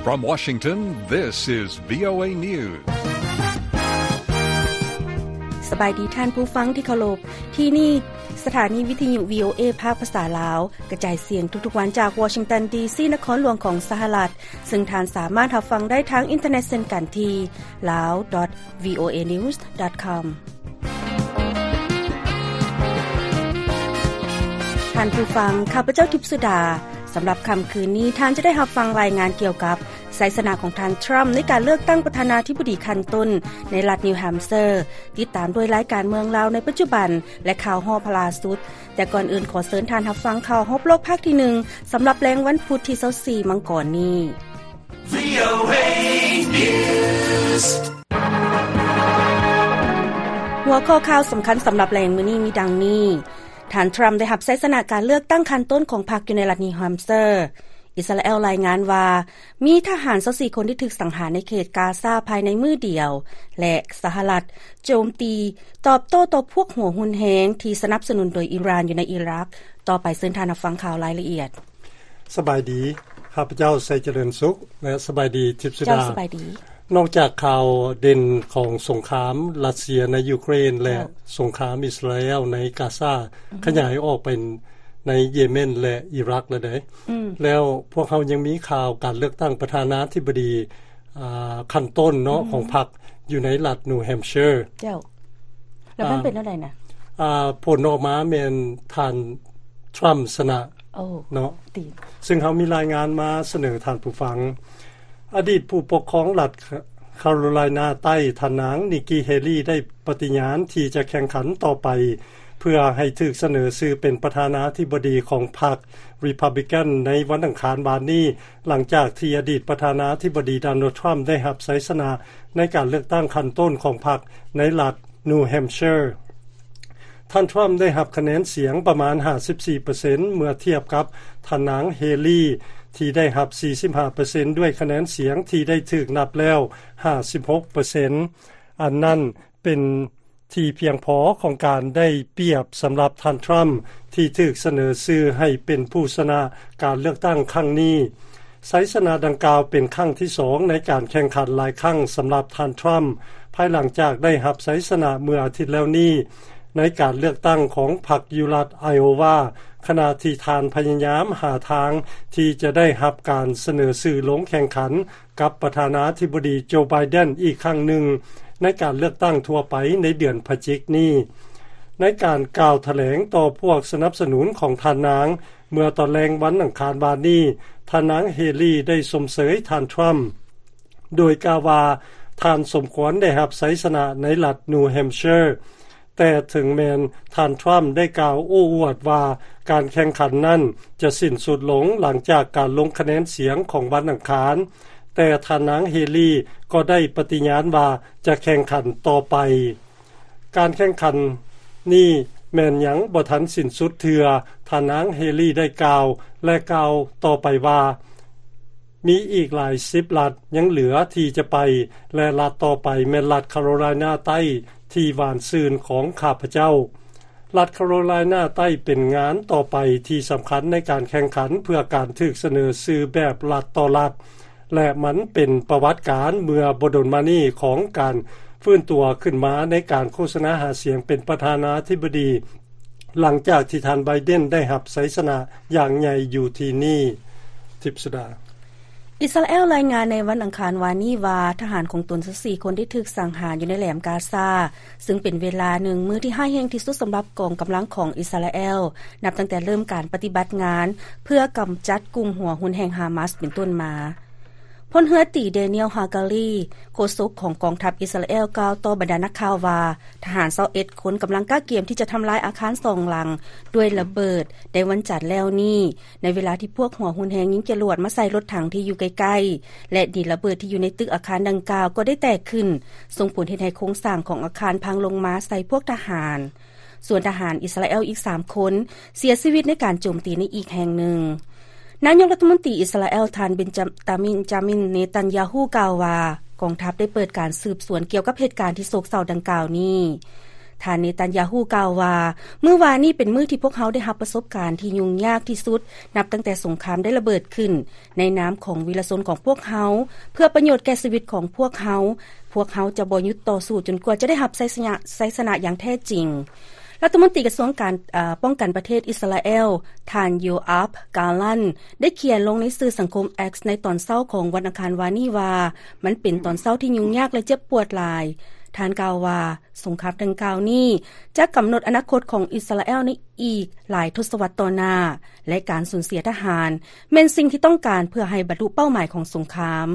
From Washington, this is VOA News. ສະບາຍດີທ່ານຜູ້ຟັງທີ່ເຄົາລົບ. ທີ່ນີ້ສະຖານີວິທະຍຸ VOA ພາກພາສາລາວ ກະຈາຍສຽງທຸກໆວັນຈາກວໍຊິງຕັນ ດີຊີ ນະຄອນຫຼວງຂອງສະຫະລັດ, ເຊິ່ງທ່ານສາມາດຮັບຟັງໄດ້ທາງອິນເຕີເນັດເຊັ່ນກັນທີ່ lao.voanews.com. ທ່ານຜູ້ຟັງ, ຂ້າພະເຈົ້າ ທິບສຸດາ. ສຳລັບຄ່ຳຄືນນີ້, ທ່ານຈະໄດ້ຮັບຟັງລາຍງານກ່ຽວກັບໄຊຊະນະຂອງທ່ານ ທຣຳ ໃນການເລືອກຕັ້ງປະທານາທິບໍດີຂັ້ນຕົ້ນໃນລັດນິວແຮມເຊີ, ຕິດຕາມດ້ວຍລາຍການເມືອງລາວໃນປັດຈຸບັນ ແລະ ຂ່າວຮອບຫຼ້າສຸດ. ແຕ່ກ່ອນອື່ນ, ຂໍເຊີນທ່ານຮັບຟັງຂ່າວຮອບໂລກພາກທີໜຶ່ງ ສຳລັບແລງວັນພຸດທີຊາວສີ່ມັງກອນນີ້. VOA News. ຫົວຂໍ້ຂ່າວສຳຄັນສຳລັບແລງມື້ນີ້ມີດັ່ງນີ້. ທ່ານທຣຳໄດ້ຮັບໄຊຊະນະການເລືອກຕັ້ງຂັ້ນຕົ້ນຂອງພັກຢູ່ໃນລັດນິວແຮມເຊີ. ອິດສະຣາແອລລາຍງານວ່າ ມີທະຫານຊາວສີ່ຄົນທີ່ຖືກສັງຫານໃນເຂດກາຊາພາຍໃນມື້ດຽວ ແລະ ສະຫະລັດໂຈມຕີຕອບໂຕ້ຕໍ່ພວກຫົວຮຸນແຮງທີ່ສະໜັບສະໜູນໂດຍອີຣານຢູ່ໃນອີຣັກ. ຕໍ່ໄປເຊີນທ່ານຮັບຟັງຂ່າວລາຍລະອຽດ. ສະບາຍດີ, ຂ້າພະເຈົ້າ ໄຊຈະເລີນສຸກ ແລະ ສະບາຍດີ ທິບສຸດາ. ເຈົ້າ, ສະບາຍດີ. ນອກຈາກຂ່າວເດັ່ນຂອງສົງຄາມຣັດເຊຍໃນຢູເຄຣນ ແລະ ເຈົ້າ, ສົງຄາມອິດສະຣາແອລໃນກາຊາ ອືຮຶ ຂະຫຍາຍອອກໄປໃນເຢເມັນ ແລະ ອີຣັກແລ້ວເດ້. ອືມ. ແລ້ວພວກເຮົາຍັງມີຂ່າວການເລືອກຕັ້ງປະທານາທິບໍດີ ອ່າ ຂັ້ນຕົ້ນເນາະ ອືມ ຂອງພັກຢູ່ໃນລັດນິວແຮມເຊີ. ເຈົ້າ. ແລ້ວມັນ ອ່າ ເປັນແນວໃດນະ? ອ່າ ຜົນອອກມາແມ່ນທ່ານທຣຳຊະນະ ໂອ້ ເນາະ ຕິ ເຊິ່ງເຮົາມີລາຍງານມາສະເໜີທ່ານຜູ້ຟັງ. ອະດີດຜູ້ປົກຄອງລັດຄາໂຣໄລນາໃຕ້ ທ່ານນາງ ນິກກີ ເຮລີ ໄດ້ປະຕິຍານທີ່ຈະແຂ່ງຂັນຕໍ່ໄປ ເພື່ອໃຫ້ຖືກສະເໜີຊື່ເປັນປະທານາທິບໍດີຂອງພັກຣີພັບບລິກັນໃນວັນອັງຄານວານນີ້, ຫຼັງຈາກທີ່ອະດີດປະທານາທິບໍດີ ໂດນັລ ທຣຳ ໄດ້ຮັບໄຊຊະນະໃນການເລືອກຕັ້ງຂັ້ນຕົ້ນຂອງພັກໃນລັດ New Hampshire. ທ່ານທຣຳໄດ້ຮັບຄະແນນສຽງປະມານຫ້າສິບສີ່ເປີເຊັນ ເມື່ອທຽບກັບທ່ານນາງເຮລີ ທີ່ໄດ້ຮັບສີ່ສິບຫ້າເປີເຊັນ ດ້ວຍຄະແນນສຽງທີ່ໄດ້ຖືກນັບແລ້ວຫ້າສິບຫົກເປີເຊັນ. ອັນນັ້ນເປັນທີ່ພຽງພໍຂອງການໄດ້ປຽບສຳລັບທ່ານທຣຳ ທີ່ຖືກສະເໜີຊື່ໃຫ້ເປັນຜູ້ຊະນະການເລືອກຕັ້ງຄັ້ງນີ້. ໄຊຊະນະດັ່ງກ່າວເປັນຄັ້ງທີສອງໃນການແຂ່ງຂັນຫຼາຍຄັ້ງສຳລັບທ່ານທຣຳ ພາຍຫຼັງຈາກໄດ້ຮັບໄຊຊະນະເມື່ອອາທິດແລ້ວນີ້ ໃນການເລືອກຕັ້ງຂອງພັກຢູ່ລັດໄອໂອວາ, ຂະນະທີ່ທ່ານພະຍາຍາມຫາທາງທີ່ຈະໄດ້ຮັບການສະເໜີຊື່ລົງແຂ່ງຂັນກັບປະທານາທິບໍດີໂຈ ໄບເດັນ ອີກຄັ້ງໜຶ່ງ ໃນການເລືອກຕັ້ງທົ່ວໄປໃນເດືອນພະຈິກນີ້. ໃນການກ່າວຖະແຫຼງຕໍ່ພວກສະໜັບສະໜູນຂອງທ່ານນາງ ເມື່ອຕອນແລງວັນອັງຄານວານນີ້, ທ່ານນາງເຮລີໄດ້ຊົມເຊີຍທ່ານທຣຳ ໂດຍກ່າວວ່າ ທ່ານສົມຄວນໄດ້ຮັບໄຊຊະນະໃນລັດ New Hampshire. ແຕ່ເຖິງແມ່ນທ່ານທຣຳໄດ້ກ່າວໂອ້ອວດວ່າການແຂ່ງຂັນນັ້ນຈະສິ້ນສຸດລົງຫຼັງຈາກການລົງຄະແນນສຽງຂອງວັນອັງຄານ, ແຕ່ທ່ານນາງເຮລີກໍໄດ້ປະຕິຍານວ່າຈະແຂ່ງຂັນຕໍ່ໄປ. ການແຂ່ງຂັນນີ້ແມ່ນຍັງບໍ່ທັນສິ້ນສຸດເທື່ອ, ທ່ານນາງເຮລີໄດ້ກ່າວ ແລະ ກ່າວຕໍ່ໄປວ່າ ມີອີກຫຼາຍສິບລັດຍັງເຫຼືອທີ່ຈະໄປ ແລະ ລັດຕໍ່ໄປແມ່ນລັດຄາໂຣໄລນາໃຕ້ທີ່ຫວານຊື່ນຂອງຂ້າພະເຈົ້າ. ລັດຄາໂຣໄລນາໃຕ້ເປັນງານຕໍ່ໄປທີ່ສຳຄັນໃນການແຂ່ງຂັນເພື່ອການຖືກສະເໜີຊື່ແບບລັດຕໍ່ລັດ ແລະ ມັນເປັນປະຫວັດການເມື່ອບໍ່ດົນມານີ້ຂອງການຟື້ນຕົວຂຶ້ນມາໃນການໂຄສະນາຫາສຽງເປັນປະທານາທິບໍດີ ຫຼັງຈາກທີ່ທ່ານໄບເດັນໄດ້ຮັບໄຊຊະນະຢ່າງໃຫຍ່ຢູ່ທີ່ນີ້. ທິບສຸດາ. ອິດສະຣາແອລລາຍງານໃນວັນອັງຄານວານນີ້ວ່າ ທະຫານຂອງຕົນຊາວສີ່ຄົນໄດ້ຖືກສັງຫານຢູ່ໃນແຫຼມກາຊາ, ເຊິ່ງເປັນເວລາໜຶ່ງມື້ທີ່ຮ້າຍແຮງທີ່ສຸດສຳລັບກອງກຳລັງຂອງອິດສະຣາແອລ ນັບຕັ້ງແຕ່ເລີ່ມການປະຕິບັດງານເພື່ອກຳຈັດກຸ່ມຫົວຮຸນແຮງຮາມາສເປັນຕົ້ນມາ. ພົນເຮືອຕີ ແດນຽວ ຮາກາລີ ໂຄສົກຂອງກອງທັບອິດສະຣາແອລ ກ່າວຕໍ່ບັນດານັກຂ່າວວ່າ ທະຫານຊາວເອັດຄົນກຳລັງກະກຽມທີ່ຈະທຳລາຍອາຄານສອງຫຼັງດ້ວຍລະເບີດໃນວັນຈັນແລ້ວນີ້, ໃນເວລາທີ່ພວກຫົວຮຸນແຮງຍິງຈະຫຼວດມາໃສ່ລົດຖັງທີ່ຢູ່ໃກ້ໆ ແລະ ດິນລະເບີດທີ່ຢູ່ໃນຕຶກອາຄານດັ່ງກ່າວກໍໄດ້ແຕກຂຶ້ນ, ສົ່ງຜົນເຮັດໃຫ້ໂຄງສ້າງຂອງອາຄານພັງລົງມາໃສ່ພວກທະຫານ. ສ່ວນທະຫານອິດສະຣາແອລອີກສາມຄົນເສຍຊີວິດໃນການໂຈມຕີໃນອີກແຫ່ງໜຶ່ງ. ນາຍົກລັດຖະມົນຕີອິດສະຣາແອລ ທ່ານ ເບັນຈາ ຕາມິນ ເນຕັນຢາຮູ້ ກ່າວວ່າ ກອງທັບໄດ້ເປີດການສືບສວນກ່ຽວກັບເຫດການທີ່ໂສກເສົ້າດັ່ງກ່າວນີ້. ທ່ານເນຕັນຢາຮູ້ກ່າວວ່າ, ມື້ວານນີ້ເປັນມື້ທີ່ພວກເຮົາໄດ້ຮັບປະສົບການທີ່ຫຍຸ້ງຍາກທີ່ສຸດ ນັບຕັ້ງແຕ່ສົງຄາມໄດ້ລະເບີດຂຶ້ນ ໃນນາມຂອງວີລະຊົນຂອງພວກເຮົາ ເພື່ອປະໂຫຍດແກ່ຊີວິດຂອງພວກເຮົາ, ພວກເຮົາຈະບໍ່ຢຸດຕໍ່ສູ້ຈົນກວ່າຈະໄດ້ຮັບໄຊຊະນະ, ໄຊຊະນະຢ່າງແທ້ຈິງ. ລັດຖະມົນຕີກະຊວງການ, ເອີ, ປ້ອງກັນປະເທດອິດສະຣາແອລ ທ່ານ ໂຢອາບ ກາລັນ ໄດ້ຂຽນລົງໃນສື່ສັງຄົມ X ໃນຕອນເຊົ້າຂອງວັນອັງຄານວານນີ້ວ່າ, ມັນເປັນຕອນເຊົ້າທີ່ຫຍຸ້ງຍາກ ແລະ ເຈັບປວດຫຼາຍ. ທ່ານກ່າວວ່າ, ສົງຄາມດັ່ງກ່າວນີ້ຈະກຳນົດອະນາຄົດຂອງອິດສະຣາແອລໃນອີກຫຼາຍທົດສະວັດຕໍ່ໜ້າ, ແລະ ການສູນເສຍທະຫານແມ່ນສິ່ງທີ່ຕ້ອງການເພື່ອໃຫ້ບັນລຸເປົ້າໝາຍຂອງສົງຄາມ.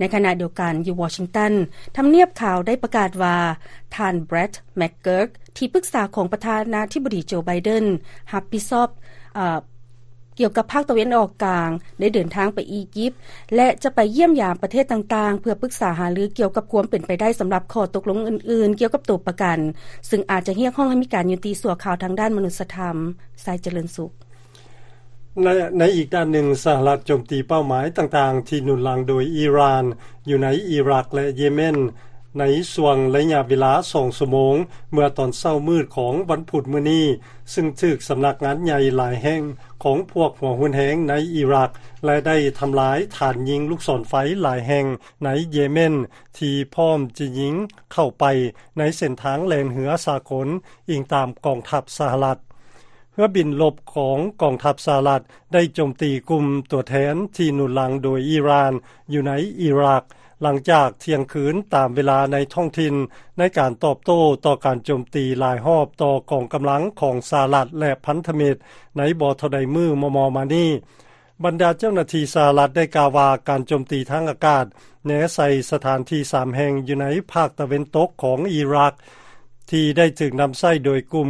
ໃນຂະນະດຽວກັນ, ຢູ່ວໍຊິງຕັນ, ທຳນຽບຂາວໄດ້ປະກາດວ່າ ທ່ານ Brett McGurk ທີ່ປຶກສາຂອງປະທານາທິບໍດີ ໂຈ ໄບເດັນ ຮັບຜິດຊອບ, ເອີ, ກ່ຽວກັບພາກຕາເວັນອອກກາງ ໄດ້ເດີນທາງໄປອີຢິບ ແລະ ຈະໄປຢ້ຽມຢາມປະເທດຕ່າງໆ ເພື່ອປຶກສາຫາລືກ່ຽວກັບຄວາມເປັນໄປໄດ້ສຳລັບຂໍ້ຕົກລົງອື່ນໆ ກ່ຽວກັບໂຕປະກັນ, ຊຶ່ງອາດຈະຮຽກຮ້ອງໃຫ້ມີການຍຸຕິຊົ່ວຄາວທາງດ້ານມະນຸດສະທຳ. ຊາຍຈະເລີນສຸກ. ໃນ, ໃນອີກດ້ານໜຶ່ງ, ສະຫະລັດໂຈມຕີເປົ້າໝາຍຕ່າງໆທີ່ໜູນຫຼັງໂດຍອີຣານ ຢູ່ໃນອີຣັກ ແລະ ເຢເມັນ ໃນຊ່ວງໄລຍະເວລາສອງຊົ່ວໂມງ ເມື່ອຕອນເຊົ້າມືດຂອງວັນພຸດມື້ນີ້, ຊຶ່ງຖືກສຳນັກງານໃຫຍ່ຫຼາຍແຫ່ງຂອງພວກຫົວຮຸນແຮງໃນອີຣັກ ແລະ ໄດ້ທຳລາຍຖານຍິງລູກສອນໄຟຫຼາຍແຫ່ງໃນເຢເມັນ ທີ່ພ້ອມຈະຍິງເຂົ້າໄປໃນເສັ້ນທາງແລ່ນເຮືອສາກົນ, ອີງຕາມກອງທັບສະຫະລັດ. ເຮືອບິນລົບຂອງກອງທັບສະຫະລັດໄດ້ໂຈມຕີກຸ່ມຕົວແທນທີ່ໜູນຫຼັງໂດຍອີຣານຢູ່ໃນອີຣັກ ຫຼັງຈາກທ່ຽງຄືນຕາມເວລາໃນທ້ອງຖິ່ນ ໃນການຕອບໂຕ້ຕໍ່ການໂຈມຕີຫຼາຍຮອບຕໍ່ກອງກຳລັງຂອງສະຫະລັດ ແລະ ພັນທະມິດໃນບໍ່ເທົ່າໃດມື້ມໍ່ໆມານີ້. ບັນດາເຈົ້າໜ້າທີ່ສະຫະລັດໄດ້ກ່າວວ່າ ການໂຈມຕີທາງອາກາດແນໃສ່ສະຖານທີ່ສາມແຫ່ງຢູ່ໃນພາກຕາເວັນຕົກຂອງອີຣັກ ທີ່ໄດ້ຖືກນຳໃຊ້ໂດຍກຸ່ມ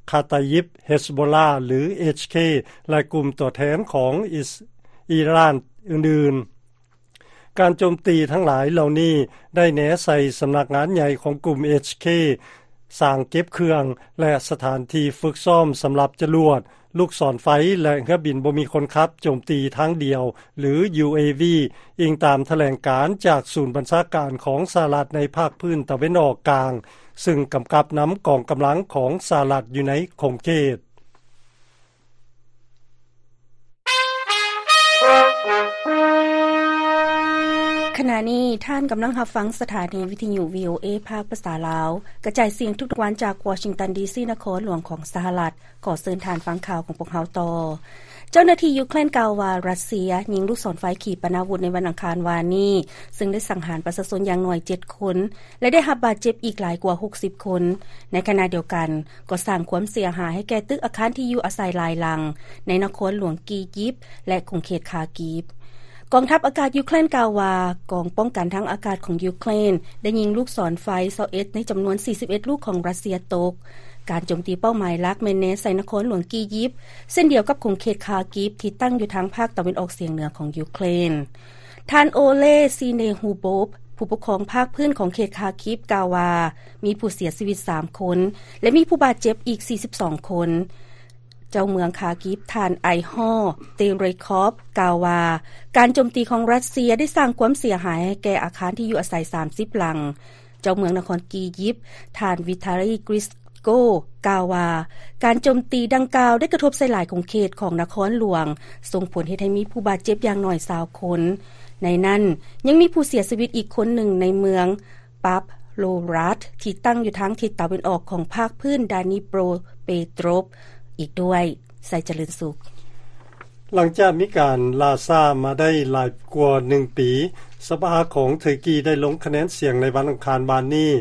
ຄາຕາຢິບ ເຮັສໂບລາ ຫຼື ເອັດຊເຄ ແລະ ກຸ່ມຕົວແທນຂອງອີຣານອື່ນໆ. ການໂຈມຕີທັງຫຼາຍເຫຼົ່ານີ້ໄດ້ແນໃສ່ສຳນັກງານໃຫຍ່ຂອງກຸ່ມເອັດຊເຄ, ສາງເກັບເຄື່ອງ ແລະ ສະຖານທີ່ຝຶກຊ້ອມສຳລັບຈະລວດ, ລູກສອນໄຟ ແລະ ເຮືອບິນບໍ່ມີຄົນຂັບໂຈມຕີທາງດຽວ ຫຼື ຢູເອວີ, ອີງຕາມຖະແຫຼງການຈາກສູນບັນຊາການຂອງສະຫະລັດໃນພາກພື້ນຕາເວັນອອກກາງ, ຊຶ່ງກຳກັບນຳກອງກຳລັງຂອງສະຫະລັດຢູ່ໃນຂົງເຂດ. ຂະນະນີ້ທ່ານກຳລັງຮັບຟັງສະຖານີວິທະຍຸ ວີໂອເອ ພາກພາສາລາວ ກະຈາຍສຽງທຸກໆວັນຈາກວໍຊິງຕັນ ດີຊີ ນະຄອນຫຼວງຂອງສະຫະລັດ. ຂໍເຊີນທ່ານຟັງຂ່າວຂອງພວກເຮົາຕໍ່. ເຈົ້າໜ້າທີ່ຢູເຄຣນກ່າວວ່າ ຣັດເຊຍຍິງລູກສອນໄຟຂີປະນາວຸດໃນວັນອັງຄານວານນີ້, ຊຶ່ງໄດ້ສັງຫານປະຊາຊົນຢ່າງໜ້ອຍເຈັດຄົນ ແລະ ໄດ້ຮັບບາດເຈັບອີກຫຼາຍກວ່າຫົກສິບຄົນ. ໃນຂະນະດຽວກັນ, ກໍສ້າງຄວາມເສຍຫາຍໃຫ້ແກ່ຕຶກອາຄານທີ່ຢູ່ອາໄສຫຼາຍຫຼັງ ໃນນະຄອນຫຼວງກີຢິບ ແລະ ຂົງເຂດຄາກີບ. ກອງທັບອາກາດຢູເຄຣນກ່າວວ່າ ກອງປ້ອງກັນທາງອາກາດຂອງຢູເຄຣນໄດ້ຍິງລູກສອນໄຟຊາວເອັດໃນຈຳນວນສີ່ສິບເອັດລູກຂອງຣັດເຊຍຕົກ. ການໂຈມຕີເປົ້າໝາຍຫຼັກແມ່ນແນໃສ່ນະຄອນຫຼວງກີຢິບ, ເຊັ່ນດຽວກັບຂົງເຂດຄາກີບທີ່ຕັ້ງຢູ່ທາງພາກຕາເວັນອອກສຽງເໜືອຂອງຢູເຄຣນ. ທ່ານ ໂອເລ ຊີເນຮູໂບບ ຜູ້ປົກຄອງພາກພື້ນຂອງເຂດຄາກີບ ກ່າວວ່າ ມີຜູ້ເສຍຊີວິດສາມຄົນ ແລະ ມີຜູ້ບາດເຈັບອີກສີ່ສິບສອງຄົນ. ເຈົ້າເມືອງຄາກີບ ທ່ານ ໄອຮໍ ເຕເຣຄອບ ກ່າວວ່າ ການໂຈມຕີຂອງຣັດເຊຍໄດ້ສ້າງຄວາມເສຍຫາຍໃຫ້ແກ່ອາຄານທີ່ຢູ່ອາໄສສາມສິບຫຼັງ. ເຈົ້າເມືອງນະຄອນກີຢິບ ທ່ານ ວິທາລີ ກຣິສໂກ ກ່າວວ່າ ການໂຈມຕີດັ່ງກ່າວໄດ້ກະທົບໃສ່ຫຼາຍຂົງເຂດຂອງນະຄອນຫຼວງ, ສົ່ງຜົນເຮັດໃຫ້ມີຜູ້ບາດເຈັບຢ່າງໜ້ອຍຊາວຄົນ. ໃນນັ້ນ ຍັງມີຜູ້ເສຍຊີວິດອີກຄົນໜຶ່ງໃນເມືອງປັບໂລຣັດ ທີ່ຕັ້ງຢູ່ທາງທິດຕາເວັນອອກຂອງພາກພື້ນດານີໂປຣເປໂຕຣບ ອີກດ້ວຍ. ໄຊຈະເລີນສຸກ. ຫຼັງຈາກມີການລ່າຊ້າມາໄດ້ຫຼາຍກວ່າໜຶ່ງປີ, ສະພາຂອງເທີກີໄດ້ລົງຄະແນນສຽງໃນວັນອັງຄານວານນີ້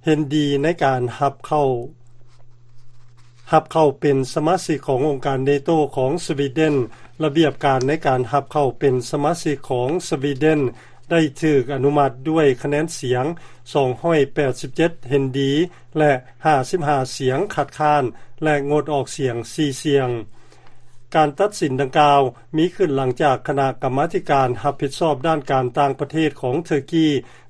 ເຫັນດີໃນການຮັບເຂົ້າ, ຮັບເຂົ້າເປັນສະມາຊິກຂອງອົງການເນໂຕຂອງສະວີເດັນ. ລະບຽບການໃນການຮັບເຂົ້າເປັນສະມາຊິກຂອງສະວີເດັນ ໄດ້ຖືກອະນຸມັດດ້ວຍຄະແນນສຽງສອງຮ້ອຍແປດສິບເຈັດເຫັນດີ ແລະ ຫ້າສິບຫ້າສຽງຄັດຄ້ານ ແລະ ງົດອອກສຽງສີ່ສຽງ. ການຕັດສິນດັ່ງກ່າວມີຂຶ້ນຫຼັງຈາກຄະນະກຳມາທິການຮັບຜິດຊອບດ້ານການຕ່າງປະເທດຂອງເທີກີ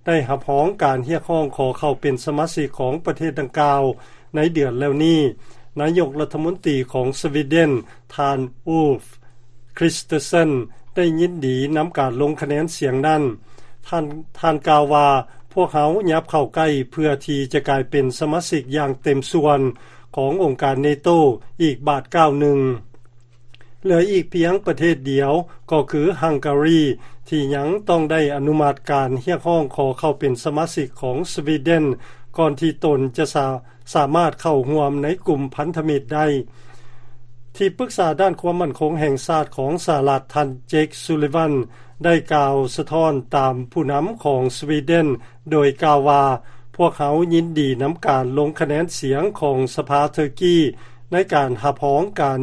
ໄດ້ຮັບຮອງການຮຽກຮ້ອງຂໍເຂົ້າເປັນສະມາຊິກຂອງປະເທດດັ່ງກ່າວໃນເດືອນແລ້ວນີ້. ນາຍົກລັດຖະມົນຕີຂອງສະວີເດັນ ທ່ານ ອູລຟ ຄຣິສເຕີເຊັນ ໄດ້ຍິນດີນຳການລົງຄະແນນສຽງນັ້ນ. ທ່ານ, ທ່ານກ່າວວ່າ, ວກເຮົາຫຍັບເຂົ້າໃກ້ເພື່ອທີ່ຈະກາຍເປັນສະມາຊິກຢ່າງເຕັມສ່ວນຂອງອົງການເນໂຕອີກບາດກ້າວໜຶ່ງ. ເຫຼືອອີກພຽງປະເທດດຽວ ກໍຄືຮັງກາຣີ ທີ່ຍັງຕ້ອງໄດ້ອະນຸມັດການຮຽກຮ້ອງຂໍເຂົ້າເປັນສະມາຊິກຂອງສະວີເດັນ ກ່ອນທີ່ຕົນຈະສາ ສາມາດເຂົ້າຮ່ວມໃນກຸ່ມພັນທະມິດໄດ້. ທີ່ປຶກສາດ້ານຄວາມໝັ້ນຄົງແຫ່ງຊາດຂອງສະຫະລັດ ທ່ານ ເຈັກ ຊູລີວັນ ໄດ້ກ່າວສະທ້ອນຕາມຜູ້ນຳຂອງສະວີເດັນ ໂດຍກ່າວວ່າ, ພວກເຮົາຍິນດີນຳການລົງຄະແນນສຽງຂອງສະພາເຕີກີ ໃນການຮັບຮອງການ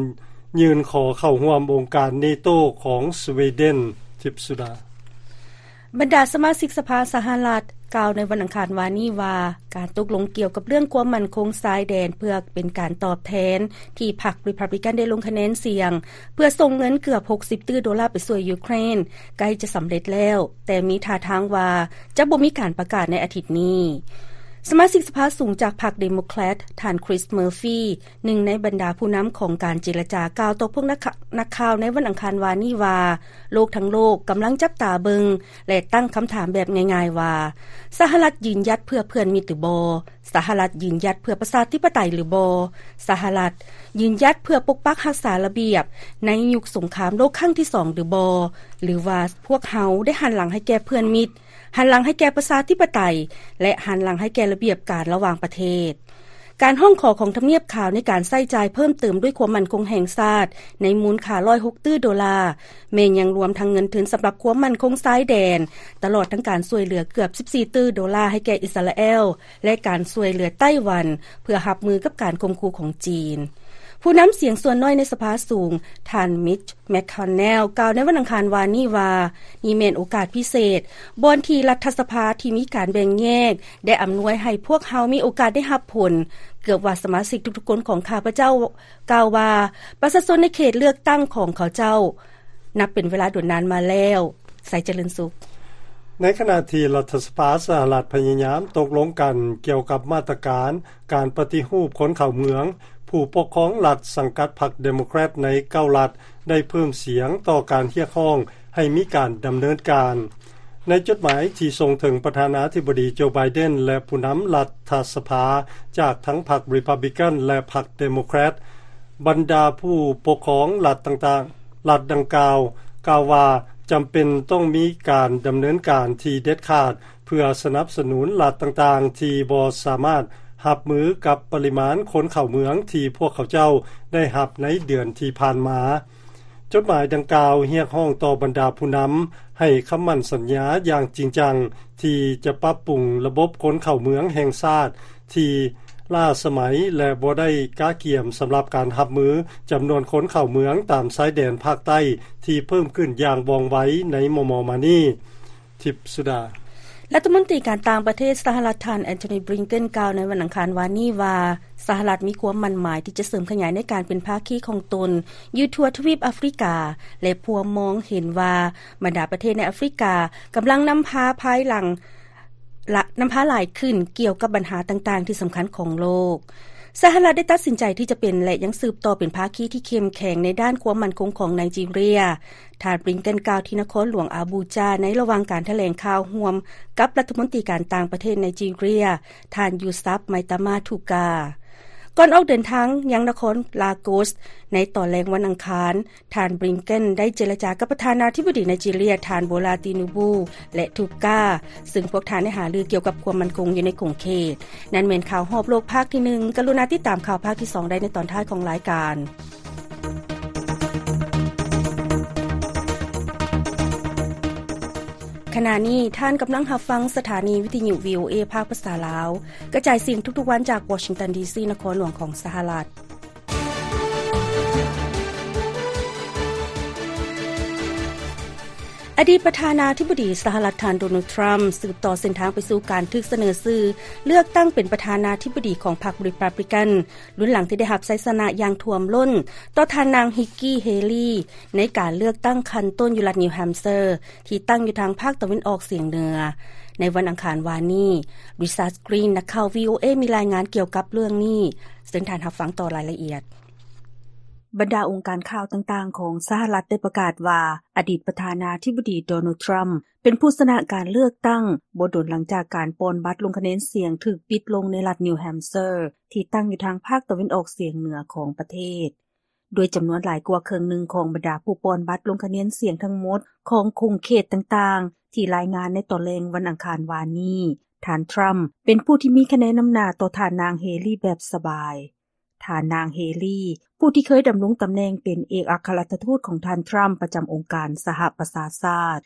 ຍື່ນຂໍເຂົ້າຮ່ວມອົງການເນໂຕຂອງສະວີເດັນ. ທິບສຸດາ. ບັນດາສະມາຊິກສະພາສະຫະລັດ ກ່າວໃນວັນອັງຄານວານນີ້ວ່າ, ການຕົກລົງກ່ຽວກັບເລື່ອງຄວາມໝັ້ນຄົງຊາຍແດນ ເພື່ອເປັນການຕອບແທນທີ່ພັກຣີພັບລິກັນໄດ້ລົງຄະແນນສຽງ ເພື່ອສົ່ງເງິນເກືອບຫົກສິບຕື້ໂດລາໄປຊ່ວຍຢູເຄຣນ ໃກ້ຈະສຳເລັດແລ້ວ, ແຕ່ມີທ່າທາງວ່າຈະບໍ່ມີການປະກາດໃນອາທິດນີ້. ສະມາຊິກສະພາສູງຈາກພັກເດໂມແຄຣດ ທ່ານ ຄຣິສ ເມີຟີ ໜຶ່ງໃນບັນດາຜູ້ນຳຂອງການເຈລະຈາ ກ່າວຕໍ່ພວກນັກ ນັກຂ່າວໃນວັນອັງຄານວານນີ້ວ່າ, ໂລກທັງໂລກກຳລັງຈັບຕາເບິ່ງ ແລະ ຕັ້ງຄຳຖາມແບບງ່າຍໆວ່າ, ສະຫະລັດຢືນຢັດເພື່ອເພື່ອນມິດຫຼືບໍ່? ສະຫະລັດຢືນຢັດເພື່ອປະຊາທິປະໄຕຫຼືບໍ່? ສະຫະລັດຢືນຢັດເພື່ອປົກປັກຮັກສາລະບຽບໃນຍຸກສົງຄາມໂລກຄັ້ງທີສອງຫຼືບໍ່? ຫຼືວ່າພວກເຮົາໄດ້ຫັນຫຼັງໃຫ້ແກ່ເພື່ອນມິດ, ຫັນຫຼັງໃຫ້ແກ່ປະຊາທິປະໄຕ ແລະ ຫັນຫຼັງໃຫ້ແກ່ລະບຽບການລະຫວ່າງປະເທດ? ການຮ້ອງຂໍຂອງທຳນຽບຂາວໃນການໃຊ້ຈ່າຍເພີ່ມເຕີມດ້ວຍຄວາມໝັ້ນຄົງແຫ່ງຊາດໃນມູນຄ່າຮ້ອຍຫົກຕື້ໂດລາ ແມ່ນຍັງລວມທັງເງິນທຶນສຳລັບຄວາມໝັ້ນຄົງຊາຍແດນ, ຕະຫຼອດທັງການຊ່ວຍເຫຼືອເກືອບສິບສີ່ຕື້ໂດລາໃຫ້ແກ່ອິດສະຣາແອລ ແລະ ການຊ່ວຍເຫຼືອໄຕ້ຫວັນ ເພື່ອຮັບມືກັບການຂົ່ມຂູ່ຂອງຈີນ. ຜູ້ນຳສຽງສ່ວນນ້ອຍໃນສະພາສູງ ທ່ານ ມິດ ແມັກຄອນແນລ ກ່າວໃນວັນອັງຄານວານນີ້ວ່າ, ນີ້ແມ່ນໂອກາດພິເສດ ບ່ອນທີ່ລັດຖະສະພາທີ່ມີການແບ່ງແຍກ ໄດ້ອຳນວຍໃຫ້ພວກເຮົາມີໂອກາດໄດ້ຮັບຜົນ. ເກືອບວ່າສະມາຊິກທຸກໆຄົນຂອງຂ້າພະເຈົ້າກ່າວວ່າ, ປະຊາຊົນໃນເຂດເລືອກຕັ້ງຂອງເຂົາເຈົ້າ ນັບເປັນເວລາດົນນານມາແລ້ວ. ໄຊຈະເລີນສຸກ. ໃນຂະນະທີ່ລັດຖະສະພາສະຫະລັດພະຍາຍາມຕົກລົງກັນກ່ຽວກັບມາດຕະການການປະຕິຮູບຄົນເຂົ້າເມືອງ, ຜູ້ປົກຄອງລັດສັງກັດພັກເດໂມແຄຣດໃນເກົ້າລັດ ໄດ້ເພີ່ມສຽງຕໍ່ການຮຽກຮ້ອງໃຫ້ມີການດຳເນີນການ. ໃນຈົດໝາຍທີ່ສົ່ງເຖິງປະທານາທິບໍດີໂຈ ໄບເດັນ ແລະ ຜູ້ນຳລັດຖະສະພາຈາກທັງພັກຣີພັບລິກັນ ແລະ ພັກເດໂມແຄຣດ, ບັນດາຜູ້ປົກຄອງລັດຕ່າງໆ ລັດດັ່ງກ່າວ ກ່າວວ່າຈຳເປັນຕ້ອງມີການດຳເນີນການທີ່ເດັດຂາດ ເພື່ອສະໜັບສະໜູນລັດຕ່າງໆທີ່ບໍ່ສາມາດຮັບມືກັບປະລິມານຄົນເຂົ້າເມືອງທີ່ພວກເຂົາເຈົ້າໄດ້ຮັບໃນເດືອນທີ່ຜ່ານມາ. ຈົດໝາຍດັ່ງກ່າວຮຽກຮ້ອງຕໍ່ບັນດາຜູ້ນຳໃຫ້ຄຳໝັ້ນສັນຍາຢ່າງຈິງຈັງ ທີ່ຈະປັບປຸງລະບົບຄົນເຂົ້າເມືອງແຫ່ງຊາດທີ່ລ້າສະໄໝ ແລະ ບໍ່ໄດ້ກະກຽມສຳລັບການຮັບມືຈຳນວນຄົນເຂົ້າເມືອງຕາມຊາຍແດນພາກໃຕ້ທີ່ເພີ່ມຂຶ້ນຢ່າງວ່ອງໄວໃນມໍ່ໆມານີ້. ທິບສຸດາ. ລັດຖະມົນຕີການຕ່າງປະເທດສະຫະລັດ ທ່ານ ແອນໂທນີ ບລິງເກັນ ກ່າວໃນວັນອັງຄານວານນີ້ວ່າ, ສະຫະລັດມີຄວາມໝັ້ນໝາຍທີ່ຈະເສີມຂະຫຍາຍໃນການເປັນພາຄີຂອງຕົນຢູ່ທົ່ວທະວີບອາຟຣິກາ ແລະ ພວມມອງເຫັນວ່າບັນດາປະເທດໃນອາຟຣິກາກຳລັງນຳພາພາຍຫຼັງ ລະ ນຳພາຫຼາຍຂຶ້ນກ່ຽວກັບບັນຫາຕ່າງໆທີ່ສຳຄັນຂອງໂລກ. ສະຫະລັດໄດ້ຕັດສິນໃຈທີ່ຈະເປັນ ແລະ ຍັງສືບຕໍ່ເປັນພາຄີທີ່ເຂັ້ມແຂງໃນດ້ານຄວາມໝັ້ນຄົງຂອງໄນຈີເຣຍ. ທ່ານ ບລິງເກັນ ກ່າວທີ່ນະຄອນຫຼວງອາບູຈາ ໃນລະຫວ່າງການຖະແຫຼງຂ່າວຮ່ວມກັບລັດຖະມົນຕີການຕ່າງປະເທດໄນຈີເຣຍ ທ່ານ ຢູຊັບ ໄມຕາມາ ທູກາ. ກ່ອນອອກເດີນທາງຍັງນະຄອນລາໂກສ ໃນຕອນແລງວັນອັງຄານ, ທ່ານ ບລິງເກັນ ໄດ້ເຈລະຈາກັບປະທານາທິບໍດີໄນຈີເຣຍ ທ່ານ ໂບລາ ຕີນູບູ ແລະ ທູກາ ຊຶ່ງພວກທ່ານໄດ້ຫາລືກ່ຽວກັບຄວາມໝັ້ນຄົງຢູ່ໃນຂົງເຂດ. ນັ້ນແມ່ນຂ່າວຮອບໂລກພາກທີໜຶ່ງ. ກະລຸນາຕິດຕາມຂ່າວພາກທີສອງໄດ້ໃນຕອນທ້າຍຂອງລາຍການ. ຂະນະນີ້ທ່ານກຳລັງຮັບຟັງສະຖານີວິທະຍຸ ວີໂອເອ ພາກພາສາລາວ ກະຈາຍສຽງທຸກໆວັນຈາກວໍຊິງຕັນ ດີຊີ ນະຄອນຫຼວງຂອງສະຫະລັດ. ອະດີດປະທານາທິບໍດີສະຫະລັດ ທ່ານ ໂດນັລ ທຣຳ ສືບຕໍ່ເສັ້ນທາງໄປສູ່ການຖືກສະເໜີຊື່ເລືອກຕັ້ງເປັນປະທານາທິບໍດີຂອງພັກຣີພັບລິກັນ ລຸນຫຼັງທີ່ໄດ້ຮັບໄຊຊະນະຢ່າງຖ້ວມລົ້ນຕໍ່ທ່ານນາງ ຮິກກີ ເຮລີ ໃນການເລືອກຕັ້ງຂັ້ນຕົ້ນຢູ່ລັດນິວແຮມເຊີ ທີ່ຕັ້ງຢູ່ທາງພາກຕາເວັນອອກສຽງເໜືອ. ໃນວັນອັງຄານວານນີ້, ລິຊາດ ກຣີນ ນັກຂ່າວ ວີໂອເອ ມີລາຍງານກ່ຽວກັບເລື່ອງນີ້. ເຊີນທ່ານຮັບຟັງຕໍ່ລາຍລະອຽດ. ບັນດາອົງການຂ່າວຕ່າງໆຂອງສະຫະລັດ ໄດ້ປະກາດວ່າ ອະດີດປະທານາທິບໍດີ ໂດນັລ ທຣຳ ເປັນຜູ້ຊະນະການເລືອກຕັ້ງ ບໍ່ດົນຫຼັງຈາກການປ່ອນບັດລົງຄະແນນສຽງຖືກປິດລົງໃນລັດນິວແຮມເຊີ ທີ່ຕັ້ງຢູ່ທາງພາກຕາເວັນອອກສຽງເໜືອຂອງປະເທດ. ດ້ວຍຈຳນວນຫຼາຍກວ່າເຄິ່ງໜຶ່ງຂອງບັນດາຜູ້ປ່ອນບັດລົງຄະແນນສຽງທັງໝົດຂອງຂົງເຂດຕ່າງໆ ທີ່ລາຍງານໃນຕອນແລງວັນອັງຄານວານນີ້, ທ່ານ ທຣຳ ເປັນຜູ້ທີ່ມີຄະແນນນຳໜ້າຕໍ່ທ່ານນາງ ເຮລີ ແບບສະບາຍ. ທ່ານນາງ ເຮລີ ຜູ້ທີ່ເຄີຍດຳລົງຕຳແໜ່ງເປັນເອກອັກຄະລັດຖະທູດຂອງທ່ານ ທຣຳ ປະຈຳອົງການສະຫະປະຊາຊາດ.